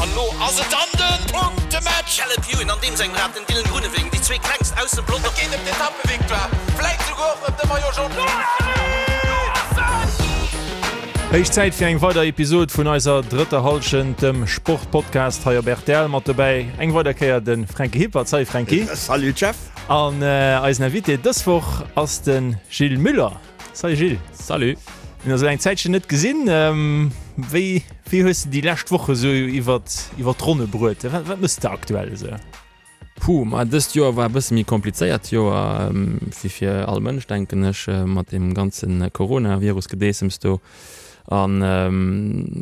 An elo ass et dann de Punktematch! Caleb Ewan an deem sengem Rad, den Dylan Groenewegen, déi zwee klengst aus dem Pelotong. Et geet ëm d'Etappevictoire, vläit souguer och ëm de Maillot Jaune. Héich Zäit fir eng weider Episod vun eiser drëtter Hallschent, dem Sportpodcast hei op rtl. Mat dobäi eng weider Kéier de Fränki Hippert. Salut Fränki. Salut Jeff. An eisen Invité dës Woch ass de Gilles Müller. Salut Gilles. Salut. Mir hunn eis elo eng Zäitchen net gesinn. Wéi wéi hues de déi lescht Woche sou iwwer iwwer d'Ronne bruet? Wat wat mëss de aktuell esou? Puh, ma dëst Joer war e bësse méi komplizéiert Joer, wéi fir all Mënsch denken ech, mat deem ganze Coronavirus-Gedeessems do. An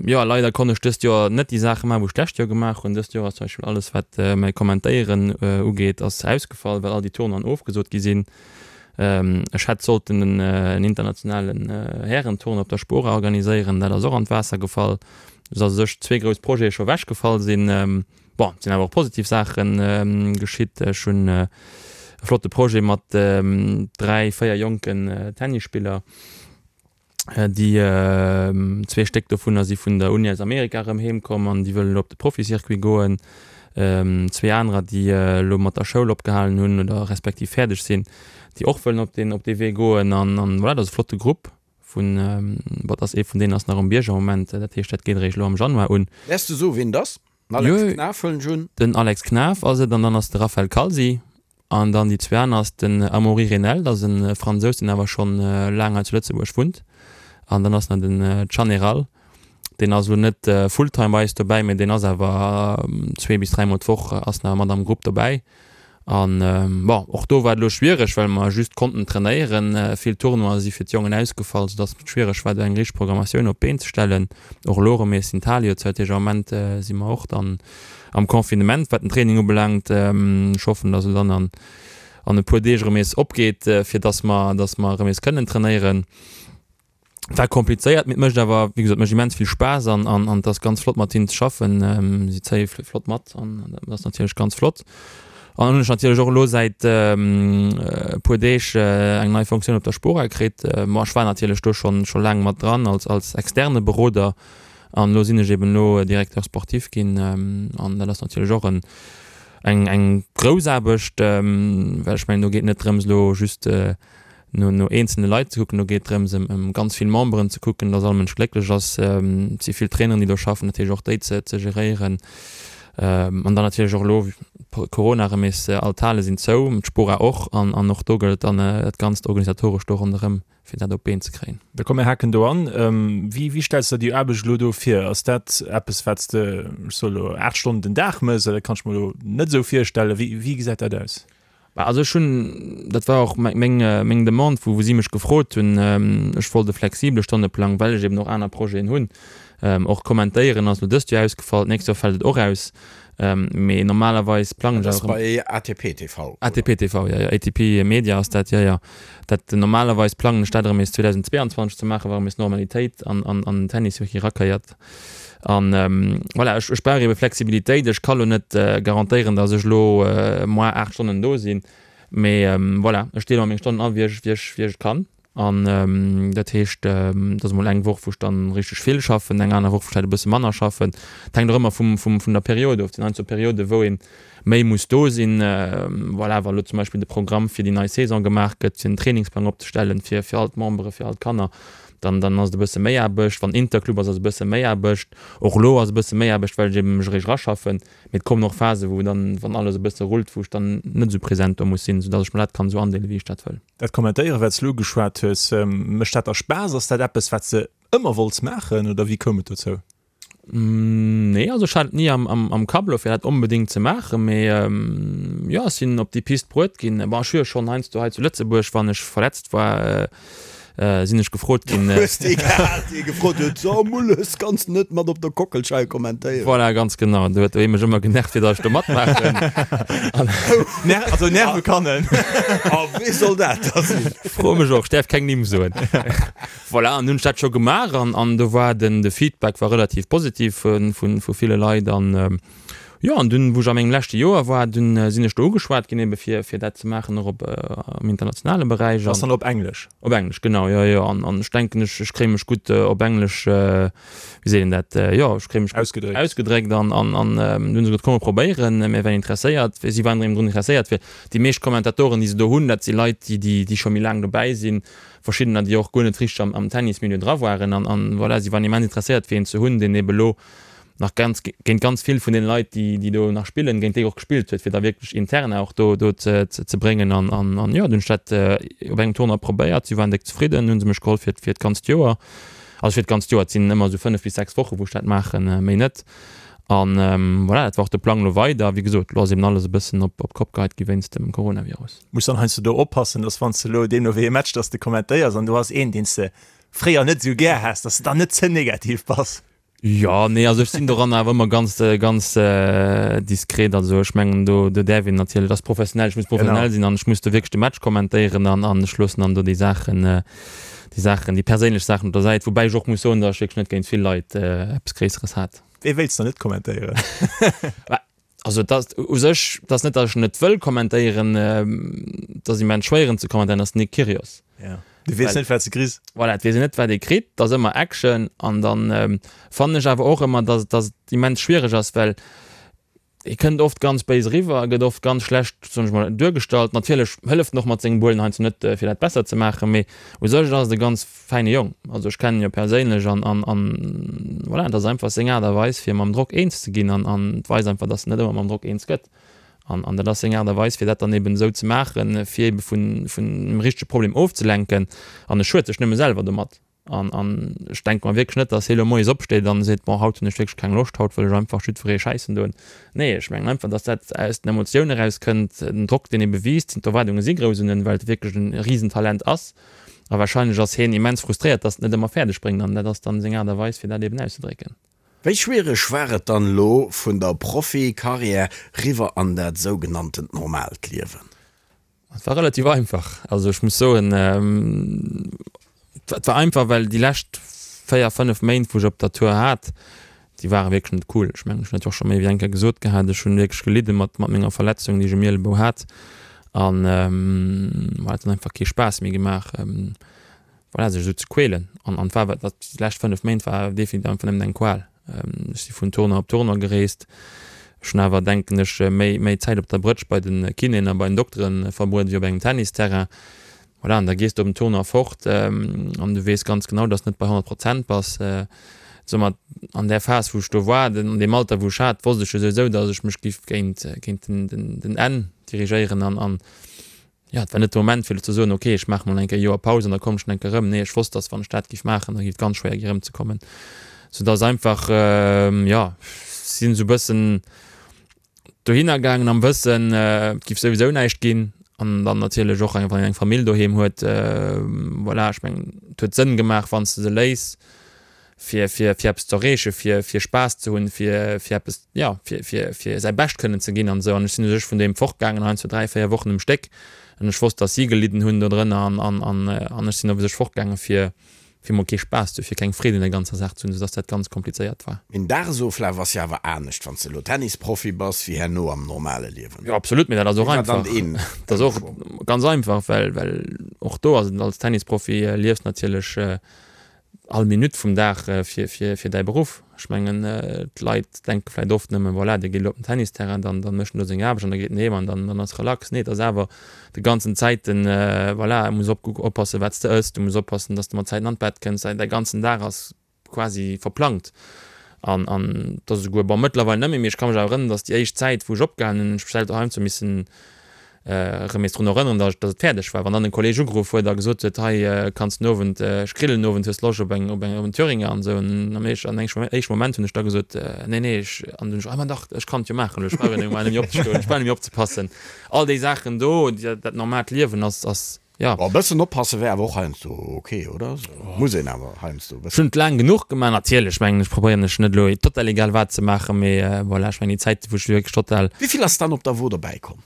jo, leider konnt ech dëst Joer net déi Saache maachen, wou ech d'lescht Joer gemaach hunn. Dëst Joer ass zum Beispill alles wat mäi Kommentéieren ugeet ass ausgefall, well all déi Tournoien ofgesot gi sinn. Ech hätt sollten en internationalen Härentournoi op der Spora organiséieren, dat ass och an d'Waasser gefall, esou dass u sech zwee grouss Projete scho ewechgefall sinn. Bon, et sinn awer och positiv Saache geschitt. Ech hunn e flotte Projet mat dräi, véier jonken Tennisspiller. Déi zwee Stéck dovunner si vun der Uni aus Amerika erëm heem komm an déi wëllen elo op de Profi-Circuit goen. Zwee anerer, déi elo mat der Schoul opgehalen hunn oder respektiv fäerdeg sinn, déi och wëllen op deen op dee Wee goen. An an voilà, dat ass e flotte Grupp vun, bon, et ass ee vun deenen ass nach um Bierg am Moment, dat heescht dat geet eréischt elo am Januar un. Däerfs de soen, wien et ass? Den Alex Knaff huelen ech un. Den Alex Knaff ass et an dann ass de Raphaël Calzi An dann déi zwee aner ass den Amaury Renel, dat ass e Fransous, deen awer schonn laang hei zu Lëtzebuerg wunnt. An dann ass nach den Can Eral, deen ass elo net fulltime bei eis dobäi, mee deen ass awer zwee bis dräimol d'Woch ass nach mat am Grupp dobäi. An bon, och do war et elo schwiereg, well mer just konnten trainéieren. Vill Tournoie si fir d'Jongen ausgefall, soudass et schwiereg war, do eng richteg Programmatioun op d'Been ze stellen. Och elo erëm nees sinn d'Hale jo zou, dat heescht am Moment si mer och dann am Confinement, wat den Training ubelaangt. Ech hoffen, dass et dann an an e puer Deeg erëm nees opgeet, fir dass mer, dass mer erëm nees kënnen trainéieren. War komplizéiert, mee et mécht awer, wéi gesot, mécht immens vill Spaass an an an et ass ganz flott mat hinnen ze schaffen. Si zéie flott mat an dat ass natierlech ganz flott. An dann hunn ech natierlech och elo säit e puer Deeg eng nei Fonctioun op der Spora kritt. Ma ech war natierlech do schonn scho laang mat dran als als externe Beroder. An elo sinn ech eben elo Directeur sportif ginn an dat ass natierlech och en, eng, eng grouss Aarbecht, well ech mengen, do geet net drëms elo just no, no eenzelne Leit ze kucken, do geet drëms ëm, ëm ganz vill Memberen ze kucken, dass all Mënsch glécklech ass. Et si vill Traineren, déi do schaffen, dat heescht och déi ze, ze geréieren. An dann natierlech och elo Corona erëm nees, all d'Hale sinn zou, d'Spora och, an, an och do gëllt dann dat Ganzt organisatoresch do ronderëm. fir dat op d'Been ze kréien. Da komm mir haken do an. Wéi, wéi stells de der déi Aarbecht elo do vir? Ass dat eppes, wat s de, ech soe elo, 8 Stonnen den Dag méchs? Oder dat kann ech mer elo net esou virstellen. Wéi, wéi gesäit dat aus? Bah, also ech hunn, dat war och meng, meng Demande, wou, wou si mech gefrot hunn, ech wollt e flexibele Stonneplang, well ech eben och aner Projeten hunn. Och kommentéieren ass elo dëst Joer ausgefall, d'nächst Joer fält et och aus. Mee normalerweis plangen ech awer. Dat ass bei ATP TV, oder? ATP TV, jo, jo, ATP Media ass dat, jo, jo. Dat, normalerweis plangen ech dat erëm nees 2022 ze maachen, wa erëm nees Normalitéit an, an, an den Tennis wierklech erakéiert. An voilà, ech, ech brauch ebe Flexibilitéit. Ech ka lo net garantéieren, datt ech elo moar 8 Stonnen do sinn, mee voilà, ech deele mer meng Stonnen an, wéi ech, wéi ech, wéi ech et kann. An dat heescht, et ass emol eng Woch, wou ech dann richteg vill schaffen, eng aner Woch, wou ech vläicht e bësse manner schaffen. Et hänkt och ëmmer vum, vum, vun der Period of. Et sinn heiansdo Perioden, wou ee méi muss do sinn. Voilà, wa lo zum Beispill de Programm fir déi nei Saison gemaach gëtt, fir den Trainingsplang opzestellen fir, fir all d'Membere, fir all d'Kanner, dann, dann ass et e bësse méi Aarbecht. Wann Interclub ass, ass e bësse méi Aarbecht. Och elo ass e bësse méi Aarbecht, well ech eben mech eréischt eraschaffen. Mee et kommen och Phasen, wou dann, wann alles e bësse rullt, wou ech dann net esou present do muss sinn, soudass ech mer dat kann esou andeelen, wéi ech dat wëll. Dat Kommentéieren, wat s de elo ugeschwat hues, mécht dat der Spaass? Ass dat eppes, wat s de ëmmer wollts maachen oder wéi koum et dozou? Nee, also ech hat et ni am Kapp elo, fir dat onbedéngt ze maachen, mee jo, ech sinn op déi Pist bruet ginn. Bon, ech hu jo schonn heiansdo hei zu Lëtzebuerg, wann ech verletzt war, sinn ech gefrot ginn. Hues dee gehat, dee gefrot huet, So Mulles, kanns de net mat op der Kockelscheier kommentéieren? Voilà, ganz genau. Do huet ee mech ëmmer genervt, fir datt ech do matmaachen. Ner also nerve kann en. A wee soll dat da sinn? Froe mech och, ech däerf keng Nimm soen. Voilà, an hunn ech dat scho gemaach an an do war den de Feedback war relativ positiv vu vu ville Leit an. Jo, an dunn, wou ech a mengem leschte Joer war, dunn sinn ech do ugeschwat ginn, ebe fir, fir dat ze maachen, och op, am internationale Beräich. Ass dann op Englesch? Op Englesch, genau, jo, jo. An, an ech denken, ech, ech kréie mech gutt op Englesch, wéi seet een dat, jo, ech kréie mech gutt Ausgedréckt. ausgedréckt. An, an, an dunn hu se gesot, komm mer probéieren, mir wären interesséiert. Si waren erëm drun interesséiert, well déi meescht Kommentatoren, déi se do hunn, dat si Leit, déi, déi, déi scho méi laang dobäi sinn, verschiddener, déi och guer net richteg am, am Tennismilieu dra waren. An, an voilà, si waren immens interesséiert, fir een ze hunn, deen ebe lo nach ganz, géint ganz vill vun deene Leit, déi, déi do nach spillen, géint déi och gespillt huet, fir da wierklech Interna och do, do ze, ze bréngen. An, an, an jo, dunn hunn ech dat op engem Tournoi probéiert. Si waren déck zefridden, hunn se mech geholl fir, fir d'ganzt Joer. Also fir d'ganzt Joer, et sinn ëmmer esou 5 bis 6 Woche wou ech dat maachen, méi net. An voilà, dat war och de Plang elo weider. Wéi gesot, elo ass eben alles e bëssen op, op d'Kopp geheit gi wéinst dem Coronavirus. Muss dann heiansdo do oppassen, dass wann s de elo deemno wéi ee Match, dass de kommentéiers an du has een, deen s de fréier net esou gär has, dass de dann net ze negativ bass. Jo, nee, also ech sinn doran awer ëmmer ganz, ganz diskret. Also ech mengen do, do däerf een natierlech, dat ass professionell, ech muss professionell sinn an ech muss do wierklech de Match kommentéieren an, an ech loossen dann do déi Saachen, déi Saachen, déi perséinlech Saachen op der Säit. Woubäi ech och muss soen, datt ech wierklech net géint vill Leit eppes Gréisseres hat. Wee wéilts de net kommentéieren? Also et ass u sech, et ass net, datt ech net wëll kommentéieren, et ass immens schwéier en ze kommentéieren, ass den Nick Kyrgios. Ja. Du weess net, wat s de kriss. Voilà, et weess een net, wat ee kritt, et ass ëmmer Action an dann fannen ech awer och ëmmer, datt datt et immens schwiereg ass, well e kënnt oft ganz béis eriwwer, e gëtt oft ganz schlecht, soen ech mol, duergestallt. Natierlech hëlleft en och mat sengem Behuelen heiansdo net, fir dat besser ze maachen, mee u sech ass et e ganz fäine Jong, also ech kennen en jo perséinlech an an an voilà, et ass einfach seng Aart a Weis fir mam Drock eens ze ginn an an et weist einfach, dass en net ëmmer mam Drock eens gëtt an an dat ass seng Aart a Weis fir dat dann eben esou ze maachen, fir ebe vun vun dem richtege Problem ofzelenken an e schued sech nëmme selwer domat an an ech denke mer wierklech net, dass hie lo moies opsteet an seet, bon haut hunn ech wierklech keng Loscht, haut wëll ech einfach jiddweree schäissen doen. Nee, ech mengen einfach, dass dat aus den Emotiounen erauskënnt, den Drock deen ebe wiisst, d'Erwaardunge si grouss un en, well et wierklech e Risentalent ass. A wahrscheinlech ass hien immens frustréiert, dass en et net ëmmer fäerdeg bréngt an dat ass dann seng Aart a Weis fir dat eben auszedrécken. Wéi schwiereg war et dann elo vun der Profi-Karriär riwwer an dat sougenanntent normaalt Liewen? Et war relativ einfach. Also ech muss soen, et war einfach, well déi lescht 4, 5 Méint wou ech op der Tour hat, déi ware wierklech net cool. Ech mengen, ech hunn dat jo och scho méi wéi eng Kéier gesot gehat, ech hunn wierklech gelidde mat mat menger Verletzung, déi ech um Ielebou hat an voilà, et huet einfach kee Spaass méi gemaach, voilà, sech esou ze quälen. An an war dat déi lescht 5 Méint war definitiv einfach nëmmen eng Qual. Ech si vun Tournoi op Tournoi gereest. Ech hunn awer, denken ech, méi méi Zäit op der Brëtsch bei de Kinéen a bei den Dokteren verbruet wéi op engem Tennisterrain. Voilà, an da gees de op den Tournoi fort an du weess ganz genau, dass de net bei 100 Prozent bass. Soumat an där Phas, wou ech do war, an deem Alter, wou ech hat, wosst ech jo souwisou, dass ech mech giff géint, géint den, den, den Enn dirigéieren an, an jo, et war net de Moment, fir elo ze soen, ok, ech maache mol eng Kéier e Joer Paus an da kommen ech nach eng Kéier erëm. Nee, ech wosst, dass wann ech dat giff maachen, da giff et ganz schwéier gi erëmzekommen. Soudass einfach, jo, sinn esou e bëssen, dohinner gaangen am Wëssen, et giff souwisou näischt ginn an dann natierlech och wann een eng Famill doheem huet, voilà, ech mengen et huet Sënn gemaach wann s de se léiss fir fir fir eppes ze erreechen, fir fir Spaass ze hunn, fir fir eppes, jo fir fir fir säi Bescht kënnen ze ginn an esou an ech sinn u sech vun doheem fortgaangen heiansdo 3, 4 Wochen um Stéck an ech wosst, datt si gelidden hunn dodrënner an an an an ech sinn op u sech fortgaange fir fir mol kee Spaass ze hu, fir keng Freed un der ganzer Saach ze hunn, soudass dat ganz komplizéiert war. Een Dagesoflaf ass jo awer anescht, wann s de elo Tennisprofi bass, wéi herno am normale Liewen. Jo, absolut, mee dat ass och einfach. Dat ass och ganz einfach, well, well och do ass et, als Tennisprofi liefs natierlech all Minutt vum Dag fir, fir, fir däi Beruff. Ech mengen, d'Leit denke vläicht oft nëmmen, voilà, dee geet elo op den Tennisterrain, dann, dann mécht en do seng Aarbecht an da geet en heem an dann, dann ass relax. Nee, et ass awer de ganzen Zäiten, voilà, muss op oppassen, wat s de ëss, du muss oppassen, dass de mat Zäiten an d'Bett kënns, däi ganzen Dag ass quasi verplangt. An, an et ass esouguer, bon, mëttlerweil net méi, mee ech ka mech awer erënneren, dass déi éischt Zäit, wou ech opgehalen hunn, ech mech selwer doheim zu missen erëm nees drun erënneren, dass et fäerdeg war. Wann dann en Kolleg ugeruff huet a gesot huet, hei kanns den Owend, ech grillen den Owend, hues Loscht op eng, op eng, op en Thüringer an esou. An am éischten, an engem éischten Moment hunn ech da gesot, nee, nee, ech, an dunn ech, ah ma dach, ech kann et jo maachen, ech brauch jo net méi opzestoen, ech brauch net méi opzepassen. All déi Saachen do, dat normaalt Liewen ass, ass, jo. Bon, e bëssen oppasse wär awer och heiansdo ok, oder? Muss een awer heiansdo e bëssen. Ech hunn et laang genuch gemaach, natierlech, mengen ech, probéieren ech net elo total egal wat ze maachen, mee voilà, ech mengen déi Zäit, wou ech wierklech total. Wéi vill ass dann op der Wo dobäi komm?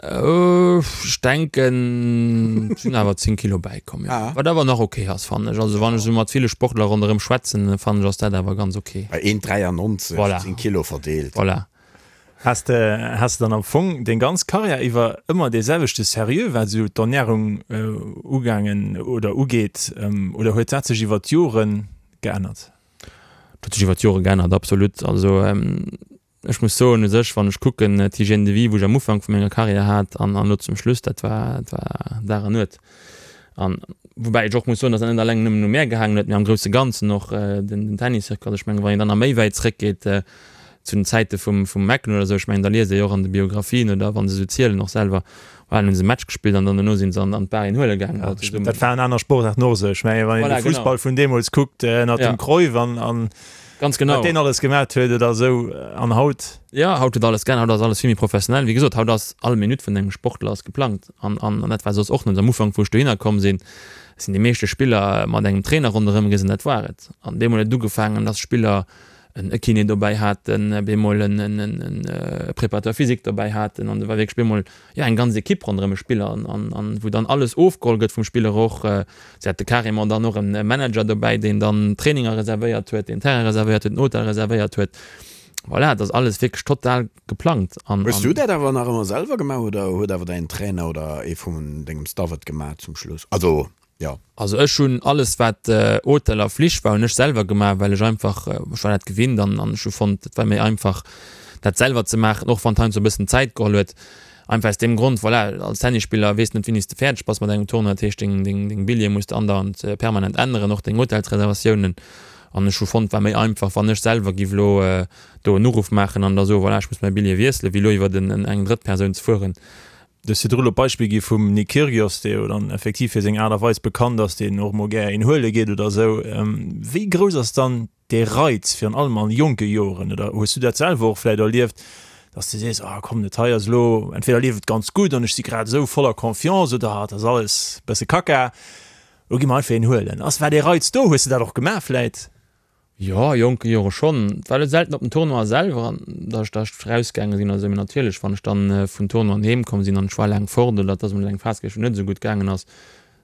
Ech denken, et sinn awer 10 Kilo bäikomm, jo. Wat awer nach ok ass, fannen ech. Also wann ech esou mat ville Sportler ronderëm schwätzen, fannen ech ass dat awer ganz ok. Bei 1,93, 10 Kilo verdeelt. Voilà. Has de, has de dann am Fong deng ganz Karriär iwwer ëmmer dee selwechte Sérieux, wat esou d'Ernärung ugaangen oder ugeet, oder huet dat sech iwwer d'Jore geännert? Dat huet sech iwwer d'Jore geännert, absolut. Also ech muss soen, u sech, wann ech kucken, d'Hygiène de vie, wou ech am Ufank vu menger Karriär hat an elo zum Schluss, dat war, dat war Dag an Nuet. An woubäi ech och muss soen, datt dat net alleng nëmmen u mär gehaangen huet, mee am grousse Ganzen och den Tenniscircuit. Also ech mengen, wann een dann nach méi wäit zréckgeet zu den Zäite vum vum McEnroe oder esou, ech mengen, da liest ee jo och an de Biographien oder wa se esou zielen och selwer, voilà, dann hu se e Match gespillt an dann dono si se an an d'Bar een huele gaangen. Ja, dat waren aner Sportaarten och esou. Ech mengen, wann een de Fussball vun deemools kuckt ënnert dem Cruyff an an Ganz genau. Wat deen alles gemat huet oder esou an haut. Jo, haut huet alles geännert, haut ass alles vill méi professionell. Wéi gesot, haut ass all Minutt vun engem Sportler ass geplangt an an dat war soss och net. Am Ufank wou ech dohinner komm sinn, sinn déi meeschte Spiller mat engem Trainer ronderëm gees an dat war et. An deemol huet et ugefaangen, dass Spiller en e Kiné dobäi haten, op eemol en en en e Préparateur physique dobäi haten an do war wierklech op eemol jo eng ganz Equipe ronderëm e Spiller an an an wou dann alles ofgeholl gëtt vum Spiller och. Si hate carrément dann och en Manager dobäi, deen dann Traininger reservéiert huet, deen Terrain reservéiert huet, den Hotel reservéiert huet. Voilà, et ass alles wierklech total geplangt an. Hues du dat awer nach ëmmer selwer gemaach oder huet awer däin Trainer oder ee vun dengem Staff et gemaach zum Schluss? Also jo. Also ech hunn alles wat Hotel a Flich war hunn ech selwer gemaach, well ech einfach, ech war dat gewinnt an an ech hu fonnt et war méi einfach dat selwer ze maachen, och wann et heiansdo e bëssen Zäit geholl huet. Einfach aus deem Grond, voilà, als Tennisspiller weess net wéini s de fäerdeg bass mat engem Tournoi, dat heescht deng deng deng Billjeeë muss de andauernd permanent änneren, och deng Hotelsreservatiounen. An ech hu fonnt et war méi einfach wann ech selwer giff elo do en Uruff maachen an da soen, voilà ech muss mäi Billjee wiesselen, wéi elo iwwert en eng drëtt Persoun ze fueren. Du hues virdru elo d'Beispill gi vum Nick Kyrgios, dee jo dann effektiv fir seng Aart a Weis bekannt ass, deen och mol gär een huele geet oder esou. Wéi grouss ass dann dee Reiz, virun allem a jonke Joren, oder hues du dat selwer och vläicht erlieft, dass du sees, ah komm, dat hei ass elo, entweder leeft et ganz gutt an ech si grad esou voller Confiance oder et ass alles e bësse Kacka, elo gi mer einfach een huelen. Ass, war dee Reiz do? Hues de dat och gemaach vläicht? Jo, a jonke Jore schonn. Et war elo selten op den Tournoie selwer, an datt ech da erausgaange sinn oder esou, mee natierlech, wann ech dann vun Tournoien heem komm sinn an ech war laang fort oder et ass emol eng Phas gewiescht, wou et net esou gutt gaangen ass,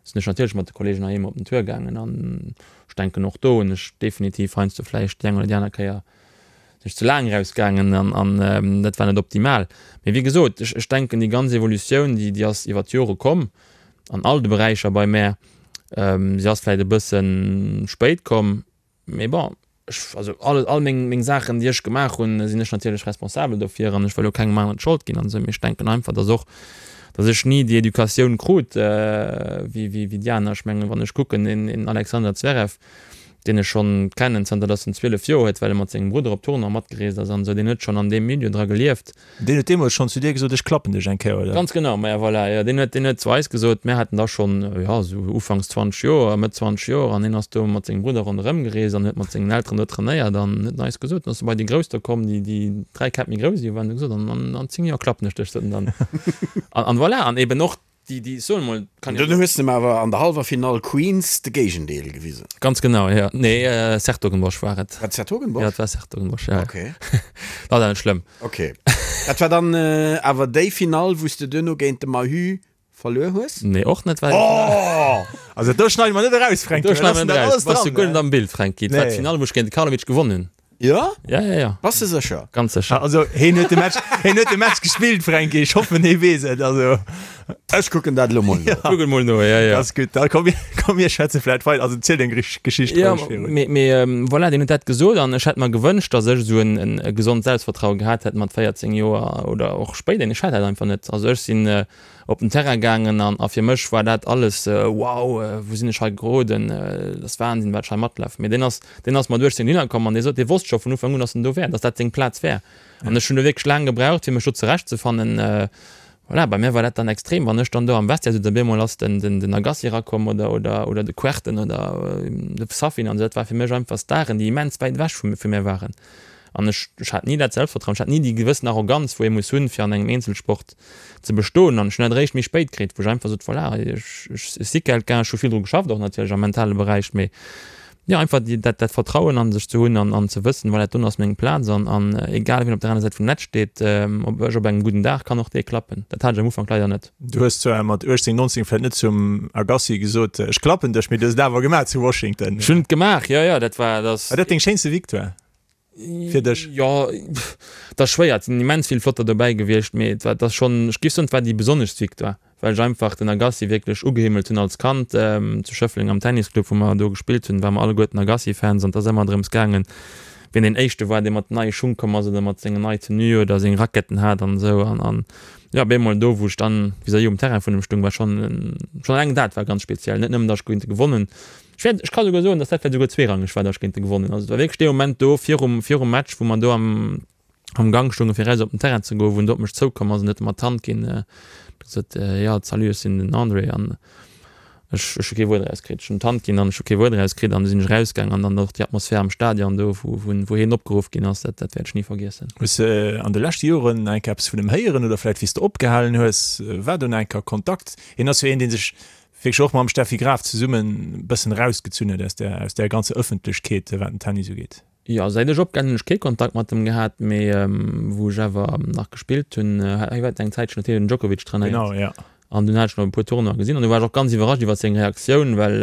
sinn ech natierlech mat de Kolleegen heiheem op den Tour gaangen. An ech denken, och do hunn ech definitiv heiansdo vläicht déi eng oder déi aner Kéier sinn ech ze laang erausgaangen an an dat war net optimal. Mee wéi gesot, ech ech denken, déi ganz Evolutioun, déi déi ass iwwer d'Jore komm an all de Beräicher bei mär. Si ass vläit e bësse spéit komm, mee bon, ech, also all, all meng, meng Saachen, déi ech gemaach hunn, sinn ech natierlech responsabel dofir an ech wëll och kengem aneren d'Schold ginn an esou. Mee ech denken einfach, dass och, dass ech ni déi Educatioun krut wéi, wéi, wéi déi aner. Ech mengen, wann ech kucken, een, een Alexander Zverev, deen ech schonn kennen zanter dass en 12 Joer huet, well e mat sengem Brudder op Tournoie matgereest ass an esou, deen huet schonn an deem Milieu dra gelieft. Deen huet deemools schonn zu dir gesot, ech klappen dech eng Kéier, oder? Ganz genau, maja voilà, jo, deen huet, deen huet zu eis gesot, mär haten da schonn, jo, esou ufanks 20 Joer, Mëtt 20 Joer, an hien ass do mat sengem Brudder ronderëm gereest an huet mat sengen Elteren do trainéiert an huet en eis gesot, dann ass e bei déi Grouss do komm, déi, déi 3 Käpp méi grouss ewéi waren, huet gesot, an, an, an 10 Joer klappen ech dech, sot en dann. An, an voilà, an eben och Déi, déi, soen emol, kann jo. Dunn hues de em awer an der hallwer Finall Queens de Géigendeel gewisen. Ganz genau, jo. Nee, 's-Hertogenbosch war et. War et 's-Hertogenbosch? Jo, et war 's-Hertogenbosch, jo. Ok. Dat ass awer net schlëmm. Ok. Dat war dann awer déi Finall, wou s de duerno géint de Mahü verluer hues? Nee, och net, well. Oh! Also do schneide mer net eraus, Fränki. Do schneide mer net eraus. Bass du guer net am Bild, Fränki. Et war d'Finall, wou ech géint de Karlovic gewonnen hunn. Jo? Ja, ja, ja. Bass de sécher? Ganz sécher. Also heen huet de Match, heen huet de Match gespillt, Fränki. Ech hoffen, hee weess et. Also. Ech kucken dat elo mol no. Kuck et mol no, ja, ja. Ass gutt. Da komm, komm mir schwätze vläit weider. Also ziel deng Geschicht Ja, roueg virun. mee, mee voilà, deen huet dat gesot an ech hätt mer gewënscht, datt ech esou en, en e gesond Selbstvertraue gehat hätt mat 14 Joer oder och spéider. Ech hat dat einfach net. Also ech sinn op den Terrain gaangen an a fir mech war dat alles wow, wou sinn ech hei geroden, dat ass Wahnsinn, wat ech hei matlafen. Mee deen ass, deen ass mat 18 dohinner komm an dee sot, dee wosst scho vun Ufank un, datt en do wär, datt dat seng Plaz wär. An ech hunn do wierklech laang gebraucht, fir mech do zurechtzefannen. Voilà, bei mir war dat dann extrem, wann ech dann do am Vestiaire sot, op eemol ass den, den, den Agassi erakomm oder, oder, oder de Kuerten oder de Safin an esou, dat war fir mech einfach Staren, déi immens wäit ewech vu, vu mir waren. An ech, ech hat ni dat Selbstvertrauen, ech hat ni déi gewëssen Arroganz, wou ee muss hunn, fir an engem Eenzelsport ze bestoen. An ech hunn dat eréischt méi spéit kritt, wou ech einfach sot, voilà, ech, ech, ech si quelqu'un, ech hu vill dru geschafft och natierlech am mentale Beräich, mee jo, einfach déi, dat, dat Vertrauen an sech ze hunn an, an ze wëssen, voilà, dat doen ass meng Plaz an, an egal wien op der aner Säit vum Netz steet, ob ech op engem gudden Dag kann och dee klappen. Dat hat ech am Ufank leider net. Du hues zwar mat 18, 19 vläicht net zum Agassi gesot, ech klappen dech, mee du hues et awer gemaach zu Washington. Ech hunn et gemaach, jo, jo, dat war, dat ass. War dat deng schéinste Victoire? Fir dech? Jo, et ass schwéier. Et sinn immens vill flotter dobäi gewiescht, mee et war, et ass schonn, ech géif soen, et war déi besonneschst Victoire, well ech einfach den Agassi wierklech ugehimmelt hunn als Kand. Zu Schëffleng am Tennisclub, wou mer do gespillt hunn, ware mer alleguerten Agassi-Fans an et ass ëmmer drëms gaangen, wien deen Éischte war, dee mat neie Schung komm ass oder mat sengen nei Tenue oder seng Raquetten hat an esou. An, an jo, op eemol do, wou ech dann vis-à-vis um Terrain vun em stung, war schonn, schonn eleng dat war ganz speziell. Net nëmmen, datt ech géint e gewonnen Ech wäert, ech ka souguer soen, dass dat vläicht souguer zweerangeg war, dass ech géint e gewonnen hunn. Also et war wierklech dee Moment do virum, virum Match, wou mer do am, am Gank stoungen, fir eraus op den Terrain ze goen, wou en do op mech zoukomm ass an huet mer d'Hand ginn, huet gesot, Jo, salut, ech sinn den André. An ech, ech hu kee Wuert erauskritt. Ech hunn d'Hand ginn an ech hu kee Wuert erauskritt an du sinn ech erausgaang an dann och déi Atmosphär am Stadion do, wou, wou, wou hien opgeruff ginn ass, dat, dat wäert ech ni vergiessen. Hues de an de leschte Joren nach eng Kéier eppes vun em héieren oder vläicht wéi s de opgehalen hues, war do nach eng Kéier Kontakt? Hien ass jo een, dee sech wierklech och mam Steffi Graf zesummen e bëssen erausgezunn huet aus där, aus där ganzer Ëffentlechkeet, wat den Tennis ugeet. Jo, säit ech opgehalen hunn, hunn ech kee Kontakt mat em gehat, mee wou ech awer nach gespillt hunn, hie war eng Zäitchen, huet hien den Djokovic trainéiert. Genau, ja. An dunn hat ech nach e puer Tournoien gesinn an du war ech och ganz iwwerrascht iwwer seng Reaktioun, well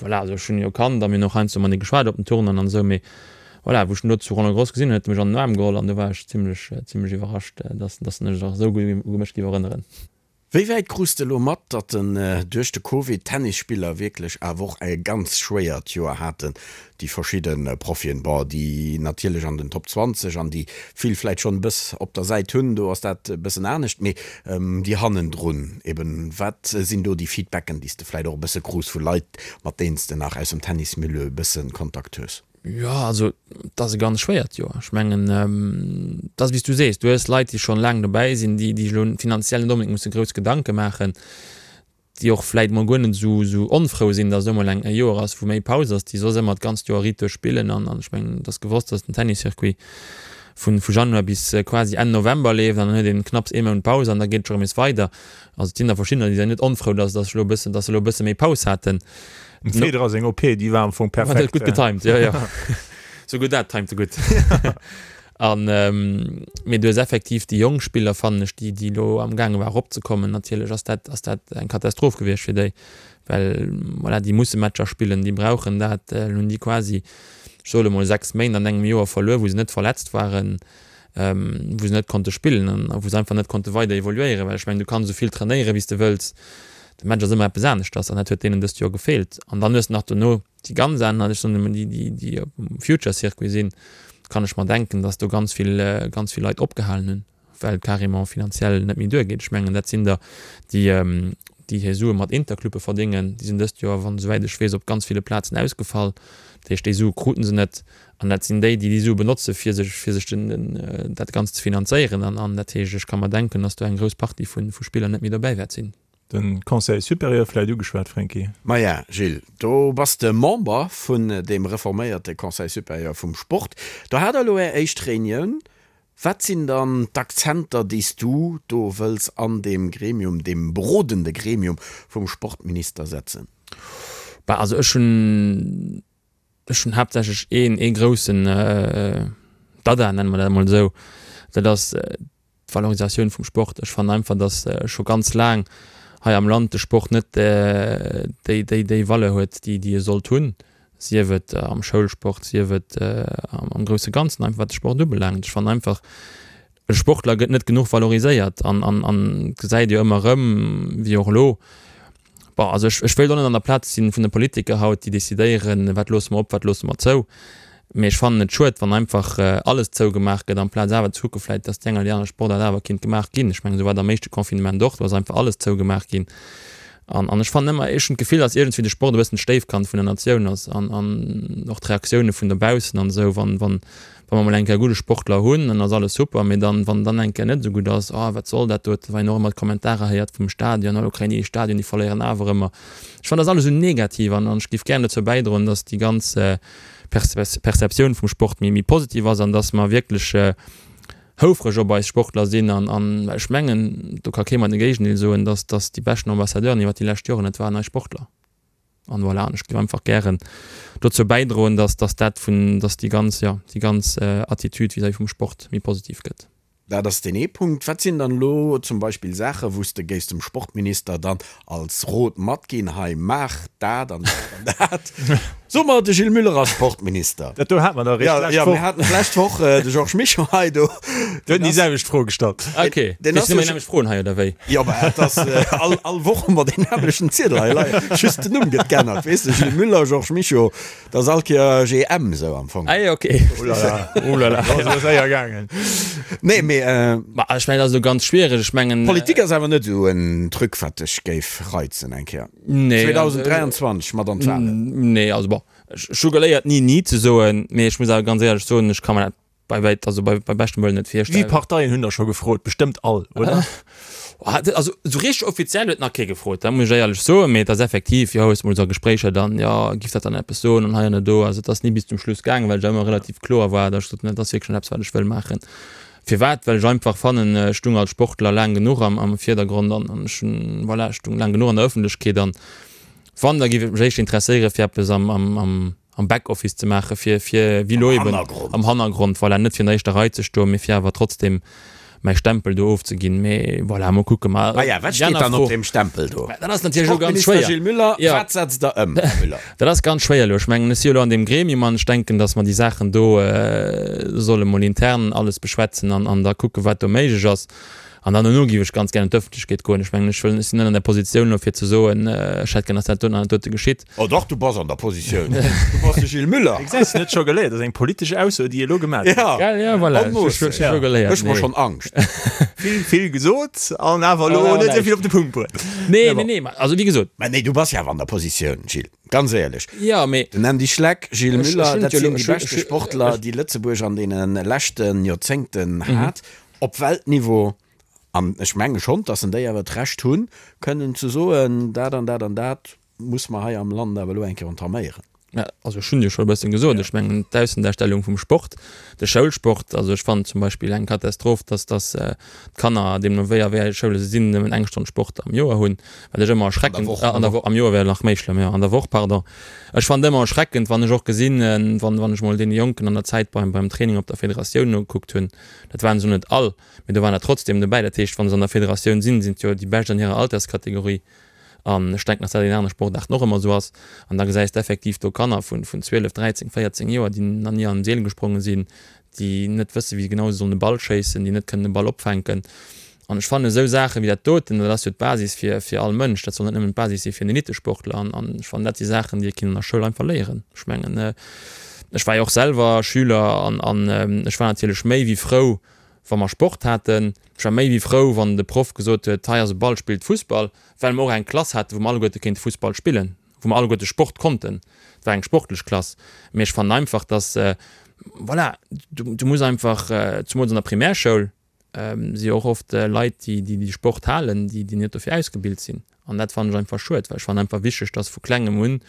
voilà, also ech hunn e jo kannt a mir hunn och heiansdo matenee geschwat op den Tournoien an esou, mee voilà, wou ech en do zu Roland Garros gesinn hunn, huet e mech an den Aarm geholl an du war ech zimmlech, zimmlech iwwerrascht, dass, dass en sech nach esou gutt u mech géif erënneren. Wéi wäit krus de elo mat, datt den duerch de Covid d'Tennisspiller wierklech awer och e ganz schwéiert Joer haten, déi verschidde Profien, bon déi natierlech an den Top 20 an déi vill vläit schonn e bëss op der Säit hunn, do ass dat e bëssen anescht, mee déi hannendrun eben, wat sinn do déi Feedbacken, déi s de vläit och e bësse krus vu Leit, mat deenen s de nach aus dem Tennismilieu e bësse Kontakt hues? Jo, also et ass e ganz schwéiert Joer. Ech mengen, et ass wéi s du sees, du hues Leit, déi schonn laang dobäi sinn, déi déi sech elo finanziell net onbedéngt musse grouss Gedanke maachen, déi och vläit mol guer net esou esou onfrou sinn, datt elo mol eng e Joer ass, wou méi Paus ass, déi soss ëmmer d'ganzt Joer riit duerch spillen. An an ech mengen, et ass gewosst, datt den Tenniscircuit vu vu Januar bis quasi Enn November leeft an dann huet een knapps ee Mount Paus an da geet et scho rëm nees weider. Also et sinn der verschiddener, déi sinn net onfrou, datt datt elo e bëssen, datt se elo e bësse méi Paus haten. Dem Federer seng OP, déi war am Fong perfekt. Gutt getimed, jo jo. Souguer dat timed e gutt. An mee du hues effektiv déi jonk Spiller, fannen ech, déi déi elo am gaange war eropzekommen, natierlech ass dat ass dat eng Katastroph gewiescht fir déi, well voilà, déi musse Matcher spillen, déi brauchen dat. Elo hunn déi quasi, ech soe lo mol, 6 Méint an engem Joer verluer, wou se net verletzt waren. wou se net konnte spillen an wou se einfach net konnte weider evoluéieren, well ech mengen, du kanns esou vill trainéieren, wéi s de wëlls, de Match ass ëmmer eppes aneschters an dat huet deenen dëst Joer gefeelt. An dann hues de nach dono déi ganz aner, ech soen ëmmer déi, déi, déi op dem Future-Circuit sinn, kann ech mer denken, datt do ganz vill, ganz vill Leit opgehalen hunn, well et carrément finanziell net méi duergeet. Ech mengen, dat sinn der, déi, déi hir Sue mat Interclubbe verdéngen, déi sinn dëst Joer, wann esouwäit ech weess, op ganz ville Plazen ausgefall. Dat heescht, déi Sue kruten se net. An dat sinn déi, déi déi Sue benotze fir sech, fir sech den, den, dat Ganzt ze finanzéieren. An, an dat heescht, ech ka mer denken, datt do eng grouss Partie vu, vu Spiller net méi dobäi wäert sinn. De Conseil supérieur vläicht ugeschwat, Franky. Maja, Gilles, do bass de Member vun deem reforméierte Conseil supérieur vum Sport. Do hat der elo Är éischt Reunioun. Wat sinn dann d'Akzenter, déi s du do wëlls an deem Gremium, deem berodende Gremium vum Sportminister setzen? Bah, also ech hunn Ech hunn haaptsächlech een, ee groussen Dada, nenne mer dat emol esou, dat ass d'Valorisatioun vum Sport. Ech fannen einfach, datt scho ganz laang hei am Land de Sport net déi, déi, déi Valeur huet, déi, déi e sollt hunn, sief et am Schoulsport, sief et am grousse Ganzen, einfach wat de Sport ubelaangt. Ech fannen einfach, e Sportler gëtt net genuch valoriséiert an, an, an gesäit jo ëmmer erëm, wéi och elo, Bon, also ech, ech wéilt och net an der Plaz sinn vun de Politiker haut, déi decidéieren, wat loosse mer op, wat loosse mer zou. Mee ech fannen et schued, wann einfach alles zougemaach gëtt, amplaz awer ze kucke vläicht, dass déi eng oder déi aner Sportaart awer kinnt gemaach ginn. Ech mengen, esou war et am éischte Confinement och, do ass einfach alles zougemaach ginn. An, an ech fannen ëmmer, ech hunn d'Gefill, dass iergendwéi de Sport e bëssen d'Stéifkand vun der Natioun ass an, an och d'Reaktioune vun dobaussen an esou, wann, wann, Wa mer mol eng Kéier gudde Sportler hunn, dann ass alles super, mee dann, wann dann eng Kéier net esou gutt ass, oh wat soll dat doten, wann een och ëmmer d'Kommentarer héiert vum Stadion, oh lo kréien déi ee Stadion, déi verléieren awer ëmmer. Ech fannen, dat ass alles esou negativ an ech géif gären dozou bäidroen, dass déi ganz Perceptioun vum Sport méi positiv ass an dass mer wierklech houfreg op eis Sportler sinn an well ech mengen, do ka kee mer de Géigendeel soen, dass déi beschten Ambassadeuren iwwert déi lescht Joren, dat waren eis Sportler. An voilà, an ech géif einfach gären dozou bäidroen, dass, dass dat vun, dass déi ganz, jo, déi ganz Attitude vis-à-vis vum Sport méi positiv gëtt. Dat ass deen ee Punkt. Wat sinn dann elo zum Beispill Saachen, wou s de géifs dem Sportminister dann als Rot matginn, hei maach dat an dat an dat? So mer, de Gilles Muller ass Sportminister. Dat do hate mer dach eréischt d'lescht Woch. Jo, mir haten d'lescht Woch de Georges Mischo hei do. Deen huet déi selwecht Fro gestallt. Ok, Deen ass sinn ëmmer déi nämmlecht Froen hei, oder wéi? Jo, mä et ass all, all Woch hu mer deen nämmlechten Ziedel hei leien, just den Numm gëtt geännert, weess de, Gilles Muller, Georges Mischo. Dat ass all Kéier GM esou am Fong. Ah jo, ok. Oulala, oulala, dat ass elo séier gaangen. Nee, mee. Ma ech mengen, dat ass elo ganz schwiereg. Ech mengen. Politik ass awer net esou en Truc, wat dech géif reizen eng Kéier. Nee. 2023 mat an d'Walen. Nee, also bon, ech hu geléiert ni ni ze soen, mee ech muss awer ganz éierlech soen, ech ka mer dat bei wäit, also bei, bei beschtem Wëllen net virstellen. Wéi Parteien hunn der scho gefrot? Bestëmmt all, oder? Also esou richteg offiziell huet nach kee gefrot, dat muss ech éierlech soen, mee et ass effektiv, jo, hues mol esou a Gespréicher dann, jo, giff dat dann eppes soen an hei an do. Also et ass ni bis zum Schluss gaangen, well ech ëmmer relativ kloer war, datt ech gesot hunn, dat ass wierklech net eppes, wat ech wëll maachen. Firwat? Well ech einfach fannen, ech stung als Sportler laang genuch am, am Virdergrond an, an ech hunn, voilà, ech stung laang genuch an der Ëffentlechkeet an wann, da giff et mech éischter interesséiere fir eppes am, am, am, am Backoffice ze maachen, fir, fir wéi elo eben am Hannergrond, voilà, net fir an der éischter Rei ze stoen, mee fir awer trotzdem mäi Stempel do ofzeginn. Mee voilà, mol kucken. Ma ja, wat steet dann op deem Stempel do? Dat ass natierlech elo ganz schwéier. Sportminister Gilles Muller, wat setzt Der ëm, Här Muller? Dat ass ganz schwéier elo. Ech mengen, ech si jo elo an deem Gremium an ech denken, datt mer déi Saachen do solle mol intern alles beschwätzen an, an da kucken, wat do méiglech ass. An dann dono géif ech ganz gär an d'Ëffentlechkeet goen. Ech mengen, ech wëll, ech sinn net an der Positioun elo fir ze soen, ech hätt gär, datt dat doten an dat dote geschitt. Oh dach, du bass an der Positioun. Du bass de Gilles Muller. Gesäis de, net scho geléiert. Dat ass eng politesch Ausso, déi e elo gemaach huet. Ja, Gell, ja, voilà. en masse. Ech hu scho geléiert. Mécht mer schonn Angscht. Vill, vill gesot an awer elo net esou vill op de Punkt bruet. Nee, nee, nee, also wéi gesot. Mä nee, du bass jo awer an der Positioun, Gilles, ganz éierlech. Jo, mee. Den Andy Schleck, Gilles Ech, Muller, ech hunn dat et jo sinn elo, déi ech hunn, beschte ech, Sportler, déi Lëtzebuerg an deene leschte Joerzéngten hat, op Weltniveau. An ech menge schonn, dass en déi awer d'Recht hunn, kënnen ze soen, dat an dat an dat muss mer hei am Land awer elo eng Kéier entaméieren. Ja, also ech hunn jo scho e bëssen gesot, ech mengen d'Aussendarstellung vum Sport, de Schoulsport, also ech fannen zum Beispill eng Katastroph, dass dass d'Kanner, deemno wéi a wéi enge Schoule se sinn, nëmmen eng Stonn Sport am Joer hunn, wat ech ëmmer erschreckend, an der Woch, am Joer wär nach méi schlëmm, jo, an der Woch, pardon. Ech fannen et ëmmer erschreckend, wann ech och gesinn, wann wann ech mol deene Jonken an der Zäit beim beim Training op der Federatioun nogekuckt hunn, dat waren se net all, mee do waren der trotzdem dobäi. Dat heescht, wa se an der Federatioun sinn, sinn et jo déi Bescht an hirer Alterskategorie. An ech denken, dass dat an anere Sportaarten och ëmmer esou ass. An da gesäis de effektiv do Kanner vun 12, 13, 14 Joer, déi nach ni an den Seel gespronge sinn, déi net wëssen, wéi genau se sollen e Ball schéissen, déi net kënnen e Ball opfänken. An ech fannen esou Saache wéi dat doten, dat ass jo d'Basis fir, fir all Mënsch, dat soll net nëmmen d'Basis si fir en Elitesportler. An, an ech fannen, dat si Saachen, déi ee kinnt an der Schoul einfach léieren. Ech mengen, ech war jo och selwer Schüler an, an ech war natierlech méi wéi frou, wa mer Sport haten. Ech war méi wéi frou, wann de Proff gesot huet, hei ass e Ball, spillt Fussball, well mer och eng Klass haten, wou mer alleguerte kéinte Fussball spillen, wou mer alleguerte Sport konnten. Et war eng sportlech Klass. Mee ech fannen einfach, dass, voilà, du, du muss einfach, zumools an der Primärschoul, si och oft Leit, déi déi Sport halen, déi déi net dofir ausgebilt sinn. An dat fannen ech einfach schued, well ech fannen einfach wichteg, dass vu klengem un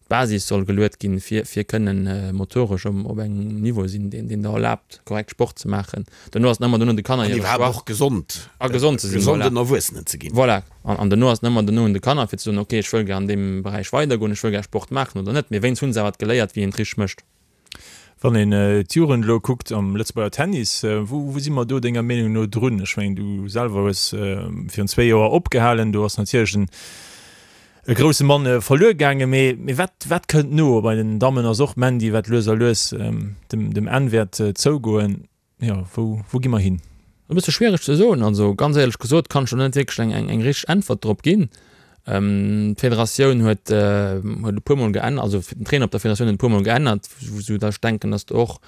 d'Basis soll geluet ginn, fir fir kënnen motoresch op op engem Niveau sinn, deen deen der erlaabt, korrekt Sport ze maachen. Duerno ass et ëmmer duerno de Kanner An hire iwwerhaapt Choix. och gesond, A gesond ze sinn, voilà. gesonden Erwuessenen ze ginn. Voilà. An an duerno ass et ëmmer duerno un de Kanner, fir ze soen, okay, ech wëll gär an deem Beräich weidergoen, ech wëll gär Sport maachen oder net. Mee wéinst hunn se awer geléiert, wéi een et richteg mécht. Wann een d'Jugend elo kuckt am Lëtzebuerger Tennis, wou wou si mer do denger Meenung no drun? Ech mengen, du selwer hues virun zwéi Joer opgehalen, do ass natierlech en e grousse Mann verluer gaangen, mee mee wat wat kënnt no? Bei den Dammen ass och Mandy, wat lues a lues dem dem Enn wäert zougoen. Jo, wou, wou gi mer hin? E bësse schwiereg ze soen. Also ganz éierlech gesot kann ech do net wierklech eng, eng, eng richteg Äntwert drop ginn. D'Federatioun huet, huet e puermol geännert, also den Trainer op der Federatioun huet e puermol geännert, sou datt ech denken, datt do och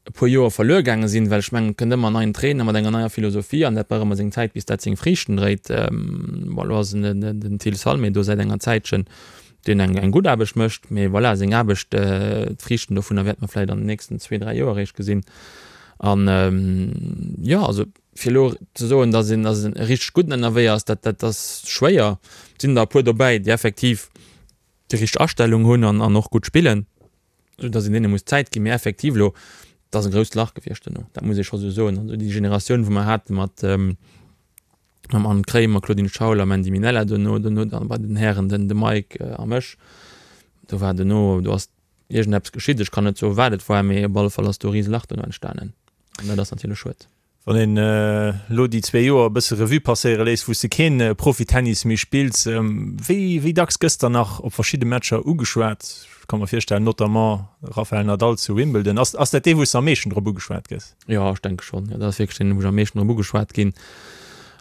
e puer Joer verluer gaange sinn, well ech mengen, et kënnt ëmmer en neien Trainer mat enger neier Philosophie an dat brauch ëmmer seng Zäit, bis dat seng Friichten dréit. Bon, elo ass den, den Till Salmé do säit enger Zäitchen. deen eng eng gutt Aarbecht mécht, mee voilà, seng Aarbecht, d'Friichten dovunner wäerte mer vläicht an den nächsten zwee, dräi Joer eréischt gesinn. An jo, also fir elo ze soen, datt een datt en richteg gudden ënnerwee ass, dat dat ass schwéier. Et sinn der e puer dobäi, déi effektiv déi richteg Astellung hunn an an och gutt spillen, esou datt een deene muss Zäit ginn. Mee effektiv elo, et ass e grousst Lach gewiescht duerno, dat muss ee scho sou soen. Also déi Generatioun, wou mer hate mat, Mam Anne Kremer, Claudine Schaul a Mandy Minella duerno, duerno dann bei den Hären den de Mike a mech. Do war duerno, do ass iergendeppes geschitt, ech kann net soen wat et war, mee op alle Fall ass do e rise Lach duerno entstanen an dat ass natierlech schued. Wann een elo déi zwee Joer e bësse Revue passéiere léisst, wou s de keen Profitennis méi spills, wéi wéi dacks gëss der nach op verschidde Matcher ugeschwat? Ech ka mer virstellen, notamment Rafael Nadal zu Wimbledon. Ass ass dat dee wou s de am meeschten drop ugeschwat gëss? Jo, ech denke schonn. Jo, dat ass wierklech deen, wou ech am meeschten drop ugeschwat ginn.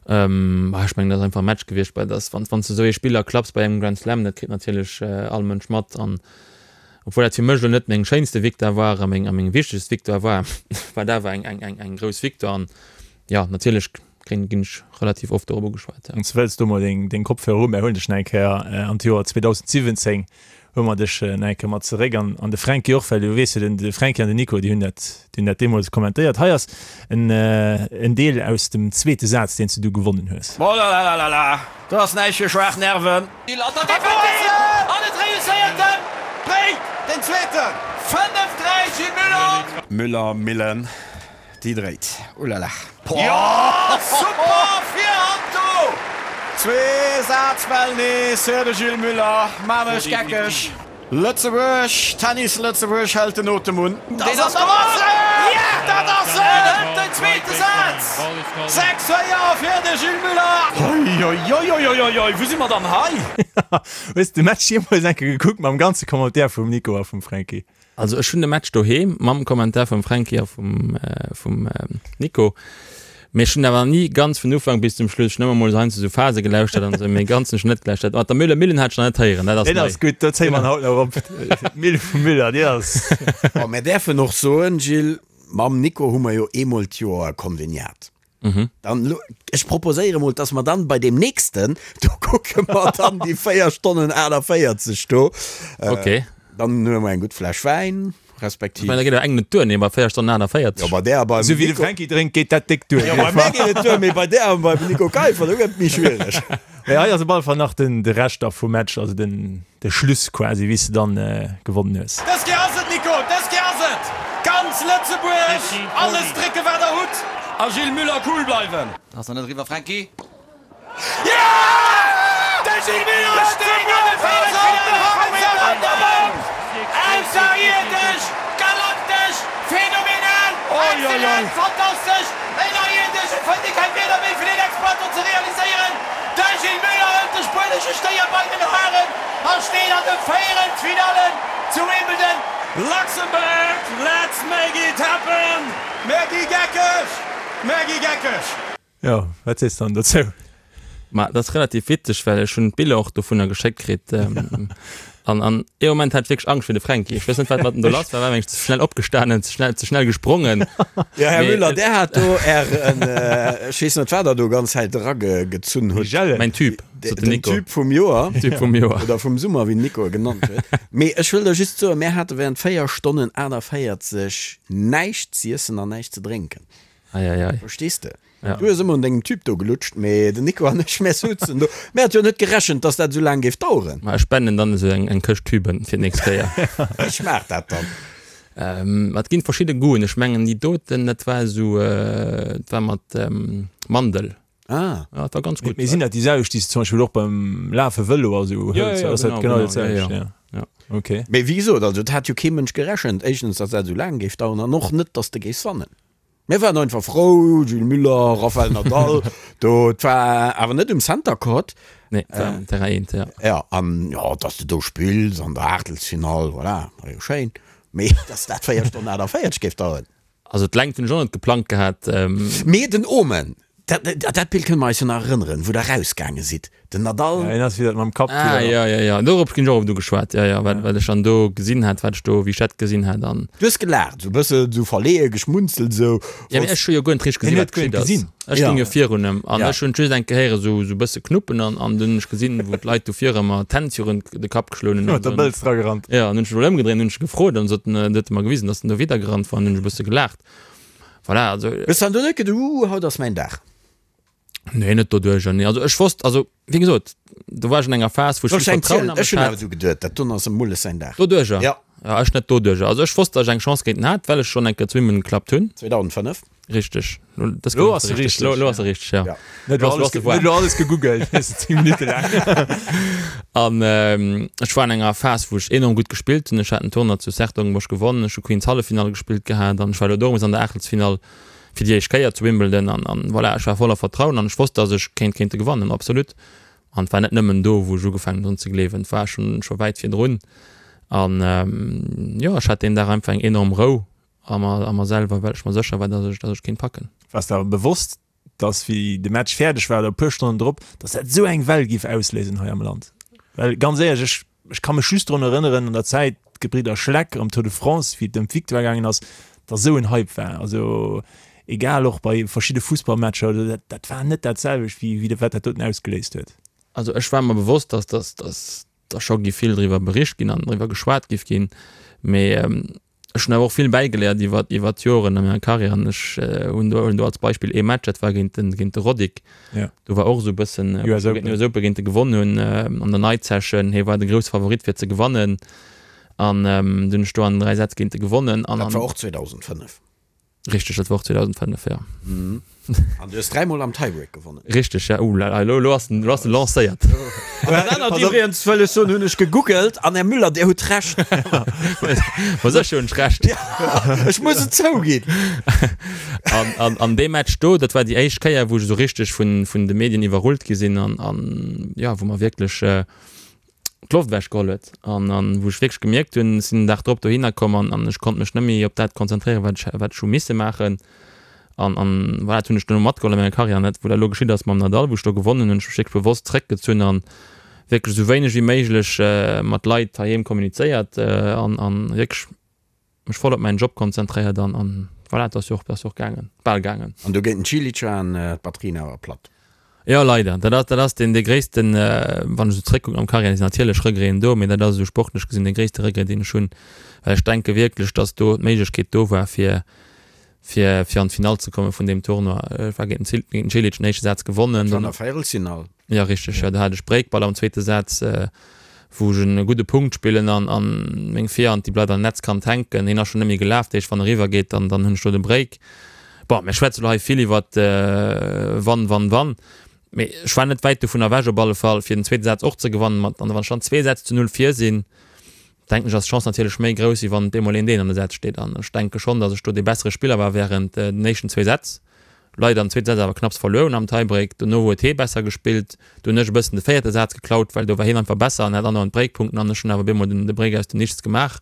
Bah, ech mengen, dat ass einfach e Match gewiescht, bei dass wann wann s de esou ee Spiller klapps bei engem Grand Slam, dat kritt natierlech all Mënsch mat an Obwuel dat fir mech elo net meng schéinste Victoire war a meng a meng wichtegst Victoire war, war et awer eng eng eng eng grouss Victoire an jo, natierlech kréien ginn ech relativ oft dorop ugeschwat, jo. Wann s de wëlls, do mol deng deng Kopfhörer un, mär huelen dech nach eng Kéier an d'Joer 2017 huele mer dech nach eng Kéier mat zeréck an an de Fränki och, well du weess jo, den de Fränki an den Nico, déi hunn dat déi hunn dat deemools kommentéiert. Hei ass en en Deel aus dem zweete Saz, deen s de du gewonnen hues. Molalalala, do ass näischt fir schwaach Nerven. An et reusséiert en! Bréngt den zweeten! 5, 3, Gilles Müller! Müller, Millen, déi dréit, ulala. Jo, super Virhand do! Zwee Sazbäll nees fir de Gilles Müller, maan mech geckeg. Lëtzebuerg, Tennis Lëtzebuerg hält den Otem un. Dat ass et! Dat ass et! Den zweete Saz! 6, 4 fir de Gilles Muller! Oioioioioioi, wou si mer dann hei? Hues de Match jeemools eng Kéier gekuckt mam ganze Commentaire vum Nico a vum Franky? Also ech hunn de Match doheem mam Kommentar vum Fränki a vum vum Nico, mee ech hunn awer ni ganz vun Ufank bis zum Schluss, ech hunn ëmmer mol heiansdo sou Phase gelauschtert an esou, mee ganz hunn ech net gelauschtert. Mat der Müller Millen hat ech nach net héieren, dat ass nei. Deen ass gutt, do zéie mer en haut nach op, d'Mille vum Müller, déi ass. Bon, mär däerfen och soen, Gilles, mam Nico hu mer jo eemol d'Joer e Konveniat. Dann elo, ech proposéiere mol, dass mer dann bei deem nächsten, do kucke mer dann déi 4 Stonnen 48 do. Okay. Dann huele mer eng gutt Fläsch Wäin, respektiv. Ech mengen, da geet awer eng net duer, nee, bei 4 Stonnen 48. Jo, bei där a beim Esou wéi de Franky drénkt, geet dat déck duer. Jo, bei mär geet et duer, mee bei där a beim Nico Keiffer, do gëtt et méi schwiereg. Mee hei ass op alle Fall nach den, de Rescht da vum Match, also den, de Schluss quasi, wéi s de dann gewonnen hues. Dës Kéier ass et, Nico, dës Kéier ass et! Ganz Lëtzebuerg, alles drécken, wat der hutt! A Gilles Müller, cool bleiwen! Ass nach net eriwwer, Fränki. Jo! De Gilles Müller steet an de Véierelsfinalle vum Wimbledon! Ausserierdesch, galaktesch, phänomenal, exzellent, fantastesch, ënnerierdesch, et fënnt ee keng Wierder méi fir deen Exploit do ze realiséieren! De Gilles Muller hëlt de spuenesche Stéier bei den Haren a steet an de Véierelsfinallen zu Wimbledon. Luxembourg, let's make it happen! Mär gi geckeg! Mär gi geckeg! Jo, wat sees de dann dozou? Ma dat ass relativ witzeg, well ech hunn d'Biller och dovunner geschéckt kritt. An an ee Moment hat ech wierklech Angscht fir de Fränki. Ech weess net, wat mat em do lass war, war mengen ech ze schnell opgestanen, ze schnell, ze schnell gesprongen. Jo, Här Müller, där hat do Ären, ech weess net, wat Der do ganz Zäit eragezunn hutt. Mäin Typ, sot den Nico. Den Typ vum Joer. Typ vum Joer. Oder vum Summer, wéi den Nico e genannt huet. Mee ech wëll der just soen, mär hate während 4 Stonnen 48 näischt z'iessen an näischt ze drénken. Ei, ei, ei. Verstees de? Ja. Du hues ëmmer un dengem Typ do gelutscht, mee den Nico an ech, mär souzen do. Mär hat jo net gerechent, dass dat esou laang géif daueren. Ma ech spenden dann esou eng, eng Këscht Tüben fir d'nächst Kéier. Wéi schmaacht dat dann? Ähm, et ginn verschidde Goûten. Ech mengen déi doten, dat war esou, dat war mat Mandel. Ah. Ja, dat war ganz gutt. Mee sinn dat déi selwecht, déi s de zum Beispill och beim Lafe, Vëlo a sou hëls? Ja, ja, genau, genau genau, dat selwecht, ja, ja. Ja. Okay. Mee wéi gesot, also et hat jo kee Mënsch gerechent, éischtens, dass dat esou laang géif daueren an och net, dass de géifs wannen. Mir waren einfach frou, Gilles Muller, Rafael Nadal, do, et war awer net um Center Court. Nee, et war um Terrain 1, ja. Ja, an jo, dass de do spills an der Aachtelsfinall, voilà, war jo schéin. Mee dass dat 4 Stonnen 48 géif daueren. Also d'Längt hunn ech och net geplangt gehat. Mee den Omen, dat, dat Bild kënne mer eis jo nach erënneren, wou der rausgaange sidd, Den Nadal. Ja, hien ass wieder mam Kapp. Ah, ja, ja, ja. Dorop ginn ech och oft ugeschwat. Ja, ja, wat, wat ech dann do gesinn hat, wat ech do, wéi ech dat gesinn hat an. Du hues gelaacht, esou e bëssen esou verleeë geschmunzelt, esou. Ja, mee ech hu jo guer net richteg gesinn, wat geschitt ass. Ech stoung jo virun em an ech hunn just eng Kéier héiere sou, sou e bësse knuppen an, an dunn hunn ech gesinn, wou d'Leit do vir ëmmer d'Hänn virun de Kapp geschloen hunn. Huet der Bëlz dra gerannt. Ja, an hunn ech mech emol ëmgedréint, hunn ech gefrot an sot en, huet e mer gewisen, datt en do widder gerannt war an hunn ech e bësse gelaacht. Voilà, also. Hues dann do net geduecht, Uuh, haut ass mäin Dag? Nee, net doduercher, nee. Also ech wosst, also wéi gesot, do war ech an enger Phas, wou ech vill Vertrauen a mech hat. Ech hunn awer esou geduet, dat doen ass em Mulles säin Dag. Doduercher? Ja. Ja, ech net doduercher. Also ech wosst, datt ech eng Chance géint en hat, well ech schonn eng Kéier zu Wimbledon geklappt hunn. 2005. Richteg. Lo, das Lo ass se richteg. Lo, lo ass se richteg, ja. Ja. Net lo alles, net lo alles gegoogelt, 10 Minutte laang. An ech war an enger Phas, wou ech enorm gutt gespillt hunn. Ech hat en Tournoi zu 's-Hertogenbosch gewonnen, ech hu Queens Halleffinall gespillt gehat an ech war elo dorëms an der Aachtelsfinall. Fir déi éischt Kéier zu Wimbledon an, an voilà, ech war voller Vertrauen an ech wosst, dass ech kéint géint e gewannen, absolut. An et war net nëmmen do, wou ech ugefaangen hunn drun ze gleewen, et war schonn, scho wäit virdrun. An jo, ech hat deen Dag einfach eng enorm Rou a mer, a mer selwer, well ech mer sécher war, dass ech, dass ech kéint packen. Waars de awer bewosst, dass wéi de Match fäerdeg war oder e puer Stonnen drop, dass dat esou eng Well giff ausléisen hei am Land? Well ganz éierlech, ech, ech ka mech just drun erënneren an der Zäit, d'Gebridder Schleck am Tour de France, wéi et ëm d'Victoire gaangen ass, dass esou en Hype war. Also egal och bei verschidde Fussballmatcher oder dat, dat war net dat selwecht wéi, wéi wat dat doten ausgeléist huet. Also ech war mer bewosst, dass, dass, dass da scho giff vill driwwer bericht ginn an driwwer geschwat giff ginn, mee Ech hunn awer och vill bäigeléiert iwwer iwwer d'Joren a menger Karriär an ech hunn do hunn do als Beispill ee Match, dat war géint den géint de Roddick. Ja. Do war och esou e bëssen US Open. US Open géint e gewonn hunn an der Night Session. Hie war de grousse Favorit fir ze gewannen an dunn hunn ech do an 3 Sätz géint e gewonnen an. Dat war och 2005. Richteg, dat war och 2005, jo. An du hues dräimol am Tiebreak gewonnen. Richteg, ja. Ouh la la, elo, elo ass den, elo ass den lancéiert. An dat anert iwwregens wëll ech soen, hunn ech gegoogelt an Här Müller, Dir hutt Recht. Ma sécher hunn ech Recht. Ech muss et zouginn. An, an, an dee Match do, dat war déi éischt Kéier, wou ech esou richteg vun, vun de Medien iwwerrullt gi sinn an, an, jo, wou mer wierklech, d'Loft ewech geholl huet an an wou ech wierklech gemierkt hunn, ech sinn den Dag drop dohinner komm an an ech konnt mech net méi op dat konzentréieren, wat ech wat ech hu misse maachen an an voilà, dat hunn ech duerno matgeholl a menger Karriär an dat wou dat elo geschitt ass mam Nadal, wou ech do gewonnen hunn, hunn ech mech wierklech bewosst zréckgezunn an wierklech esou wéineg wéi méiglech mat Leit heiheem kommunizéiert an an wierklech mech voll op mäin Job konzentréiert an an voilà, et ass jo och, ass jo och gaangen, bal gaangen. An do géint den Cilic waren d'Batterien awer platt. Jo leider, dat ass, dat ass deen dee gréissten, wann ech esou zréckkucken am Carrière, sinn natierlech Regreten do, mee dat ass esou sportlech gesinn dee gréisste Regret deen ech hunn, well ech denke wierklech, datt do d'Méiglechkeet do war fir fir fir an d'Finall ze komme vun deem Tournoi. Ech war géint den géint den Cilic den éischte Saz gewonnen. Dat war an der Véierelsfinall. Jo richteg, jo do hat ech Breakball am zweete Saz, wou ech en gudde Punkt spillen an an meng Virhand déi bleift an Netzkant hänken. Hien ass schonn net méi gelaf, dat heescht wann e riwwer geet, dann dann hunn ech do de Break. Bon, mir schwätze lo hei vill iwwert wann, wann, wann, mee ech war net wäit dovun ewech op alle Fall fir den zweete Saz och ze gewannen. Mat an wann ech dann zwee Sätz zu null vir sinn, denken ech ass d'Chance natierlech méi grouss wéi wann op eemol een deen an de Sätz steet. An ech denke schonn, datt ech do dee bessere Spiller war während den éischten zwee Sätz. Leider am zweete Saz awer knapps verluer hunn am Tiebreak. Dono huet hee besser gespillt. Do hunn ech e bëssen de véierte Saz geklaut, well do war hien einfach besser an hat andauernd Breakpunkten an ech hunn awer op eemol den de Break aus dem Nichts gemaach.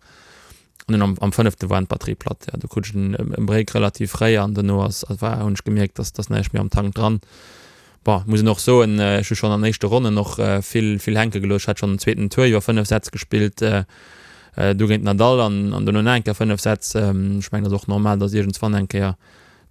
An dunn am am fënnefte waren d'Batterie platt. Jo, do krut ech en e Break relativ fréi an dono ass war hunn ech gemierkt, dass dass näischt méi am Tank dran. Bon, muss een och soen, ech hu schonn an éischte Ronnen och vill vill hänke gelooss. Ech hat schonn den zweeten Tour iwwer 5 Sätz gespillt, du géint Nadal an an dono nach eng Kéier 5 Sätz. Ech mengen, dat ass och normal, datt iergendswann eng Kéier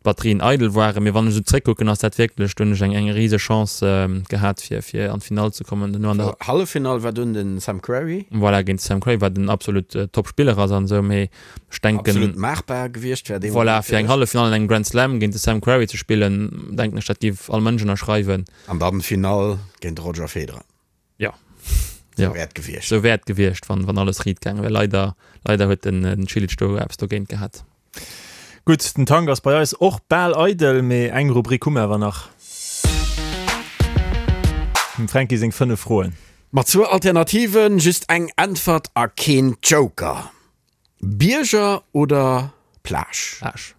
d'Batterien eidel waren. Mee wann ech esou zréckkucken, ass dat wierklech, do hunn ech eng eng rise Chance gehat, fir fir an d'Finall ze kommen. Dono an der. Halleffinall war dunn de Sam Querrey. Voilà, géint de Sam Querrey, wat en absolut Top-Spiller ass an esou, mee Ech denken, Absolut maachbar gewiescht wär dee Voilà, fir eng Halleffinall an engem Grand Slam géint de Sam Querrey ze spillen, denken ech, dat géif all Mënsch ënnerschreiwen. An dann d'Finall géint de Roger Federer. Jo. Sou wär et gewiescht. Sou wär et gewiescht, wann, wann alles riit gaange wär. Leider, leider huet den, den Cilic do eppes dogéint gehat. Gutt, den Tank ass bei eis och bal eidel, mee eng Rubrik hu mer awer nach. Dem Fränki seng 5 Froen. Mat zwou Alternativen, just eng Äntwert a keen Joker. Bierger oder Plage? Plage.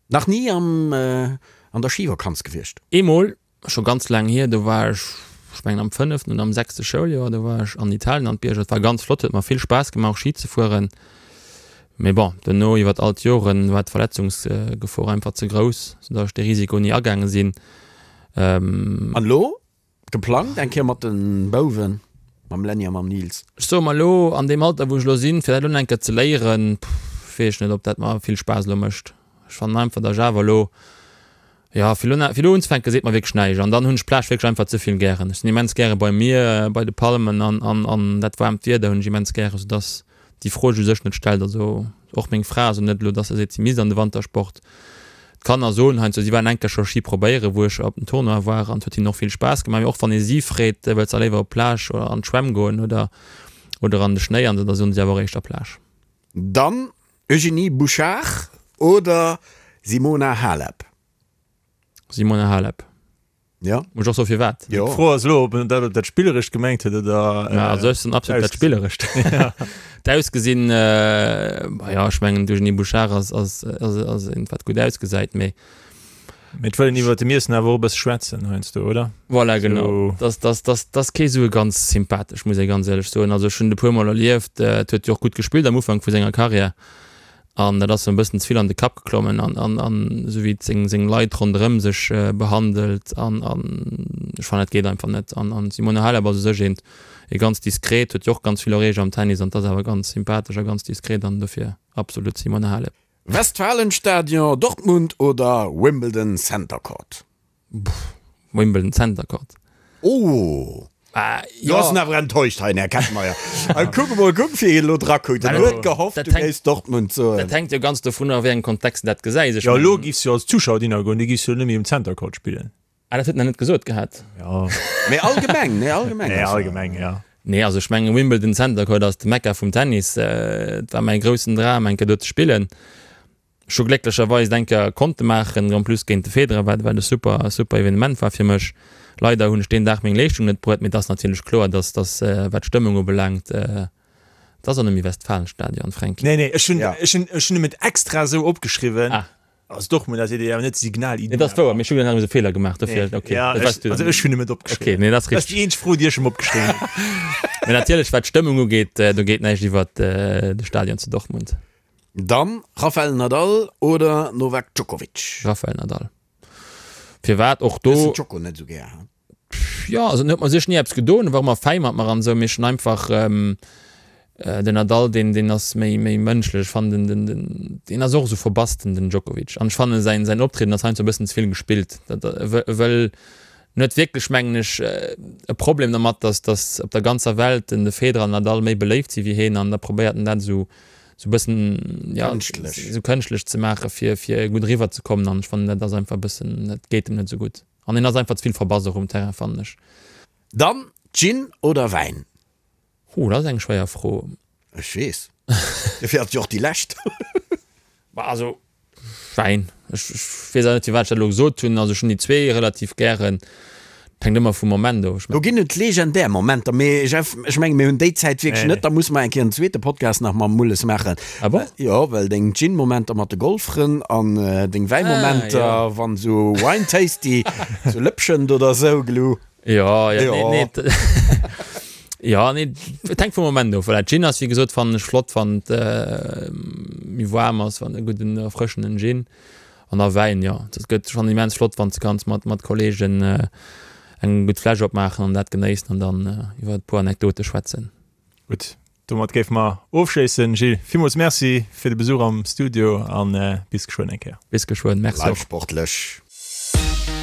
Nach ni am an der Schivakanz gewiescht? Eemol, scho ganz laang hier, do war ech, ech mengen am fënneften oder am sechste Schouljoer, do war ech an Italien an d'Bierger. Et war ganz flott, huet mer vill Spaass gemaach och Schi ze fueren. Mee bon, duerno iwwert all d'Joren war d'Verletzungsgefor einfach ze grouss, soudatt ech dee Risiko ni agaange sinn. An elo? Geplangt eng Kéier mat den Bouwen, mam Lenny a mam Nils. Ech soe mer elo, an deem Alter wou ech elo sinn, fir dat elo nach eng Kéier ze léieren, pff, weess ech net, ob dat mer vill Spaass elo mécht. Ech fannen einfach, datt ech awer elo, jo, fir elo, fir elo unzefänken, seet mer wierklech näischt. An dann hunn ech d'Plage wierklech einfach ze vill gären. Ech sinn immens gäre beim Mier, bei de Palmen an, an, an dat waarmt Wieder hunn ech immens gären, soudatt déi Fro sech u sech net stellt. Also och meng Fra, also net elo, dass se seet, si misst an de Wantersport. D'Kanner soen heiansdo, si waren eng Kéier scho Ski probéieren, wou ech op dem Tournoi war an et huet hinnen och vill Spaass gemaach. Mee och wann ee si freet, wëlls de léiwer op d'Plage oder an d'Schwämm goen oder oder an de Schnéi an esou, da soen si awer och éischter Plage. Dann Eugénie Bouchard oder Simona Halep? Simona Halep. Ja. Muss ech och soen firwat? Jo. D'Fro ass elo, ob en dat op dat Spillerescht gemengt huet oder. Ja, also ech soen absolut dat Spillerescht. D'Ausgesinn, jo, ech mengen d'Eugénie Bouchard ass, ass, ass, ass eent wat gutt ausgesäit, mee. Mee et wëll een iwwert dem Iessen awer och e bësse schwätzen heiansdo, oder? Voilà, genau. Dass, dass, dass, dass kee sou e ganz sympathesch, muss ee ganz éierlech soen. Also ech hunn et e puer Mol erlieft, et huet jo och gutt gespillt am Ufank vu senger Karriär an dat ass em e bëssen ze vill an de Kapp geklommen an, an, an esou wéi et seng, seng Leit ronderëm sech behandelt an, an ech fannen dat geet einfach net. An, an d'Simona Halep ass u sech eent, ee ganz diskret, huet jo och ganz vill Erreecht am Tennis an 't ass awer ganz sympathesch a ganz diskret an dofir absolut Simona Halep. Westfalenstadion, Dortmund oder Wimbledon Center Court? Wimbledon Center Court. Oh! Do ass en awer enttäuscht hei, den Här Kettenmeyer. Kuck emol, kuck wéi hien elo drakuckt. En huet gehofft, du géifs Dortmund soen. Dat hänkt jo ganz dovun of, a wéi engem Kontext en dat gesäis. Jo, elo giffs jo als Zuschauer dinner goen, du giffs jo net méi um Center Court spillen. Ah, dat huet en nach net gesot gehat. Jo. Mee allgemeng, nee, allgemeng. Nee, allgemeng, jo. Nee, also ech mengen, Wimbledon Center Court ass de Mekka vum Tennis. Et war mäi groussen Dram, eng Kéier do ze spillen. Ech hu glécklecherweis et eng Kéier konnte maachen, en plus géint de Federer, wat wat e super, super Evenement war fir mech. Leider hunn ech deen Dag meng Leeschtung net bruet, mee et ass natierlech kloer, dass, dass wat d'Stëmmung ubelaangt, et ass och net méi Westfalenstadion, Fränki. Nee, nee, ech hunn, ech hunn, ech hunn em et extra esou opgeschriwwen. Ah. Also Dortmund ass awer net Signal Iduna. Nee, dat ass wouer, mee ech hunn nach e Feeler gemaach, dofir, okay. Ja, ech, also ech hunn em et opgeschriwwen. Okay, nee, dat ass richteg. Dat ass déi eenzeg Fro, déi ech em opgeschriwwen hunn. Mee natierlech, wat d'Stëmmung ugeet, do geet näischt iwwert de Stadion zu Dortmund. Dann Rafael Nadal oder Novak Djokovic? Rafael Nadal. Firwat och do? Du hues den Djoko net esou gär, he? Jo, also en huet mer sech ni eppes gedoen, war ëmmer fäi mat mer an esou, mee ech hunn einfach den Nadal, deen, deen ass méi, méi mënschlech. Ech fannen den, den, deen ass och esou verbass, den, den Djokovic. An ech fannen säin, säin Optrieden ass heiansdo e bëssen ze vill gespillt. Dat, e wëll, e wëll, en huet wierklech, mengen ech, e Problem dermat, dass, dass op der ganzer Welt den, de Federer an Nadal méi beléift si wéi heen an da probéiert en dat esou, esou e bëssen, ja, Kënschtlech. esou kënschtlech ze maachen, fir, fir gutt eriwwer ze kommen. An ech fannen, dat ass einfach e bëssen, dat geet em net esou gutt. An en ass einfach ze vill verbass och um Terrain, fannen ech. Dann Gin oder Wäin? Huh, dat ass eng schwéier Fro. Ech weess. Dofir ass et jo och déi lescht. Bah, also Wäin. Ech weess awer net, firwat ech dat elo gesot hunn. Also ech hunn déi zwee relativ gären. Et hänkt ëmmer vum Moment of. Do ginn et legendär Momenter, mee Jeff, ech menge mir hunn déi Zäit wierklech net. Da musse mer eng Kéier en zweete Podcast nach mam Mulles maachen. Ah bon? Jo, well deng Gin-Momenter mat de Golffrënn an deng Wäi-Momenter, wann esou Wine Tasty zu Lëpschent oder esou, glu. Jo, jo, nee, nee. Jo, nee, et hänkt vum Moment of. Voilà, Gin ass, wéi gesot, fannen ech flott, wann et méi waarm ass, wann e gudden erfrëschenden Gin. An da Wäin, jo. Dat gëtt schonn immens flott, wann s de kanns mat, mat Kolleegen eng gutt Fläsch opmaachen an dat genéissen an dann iwwer e puer Anekdote schwätzen. Gutt, domat géife mer ofschléissen. Gilles, villmools Merci fir de Besuch am Studio a bis geschwënn eng Kéier. Bis geschwënn, Merci och. Bleift sportlech.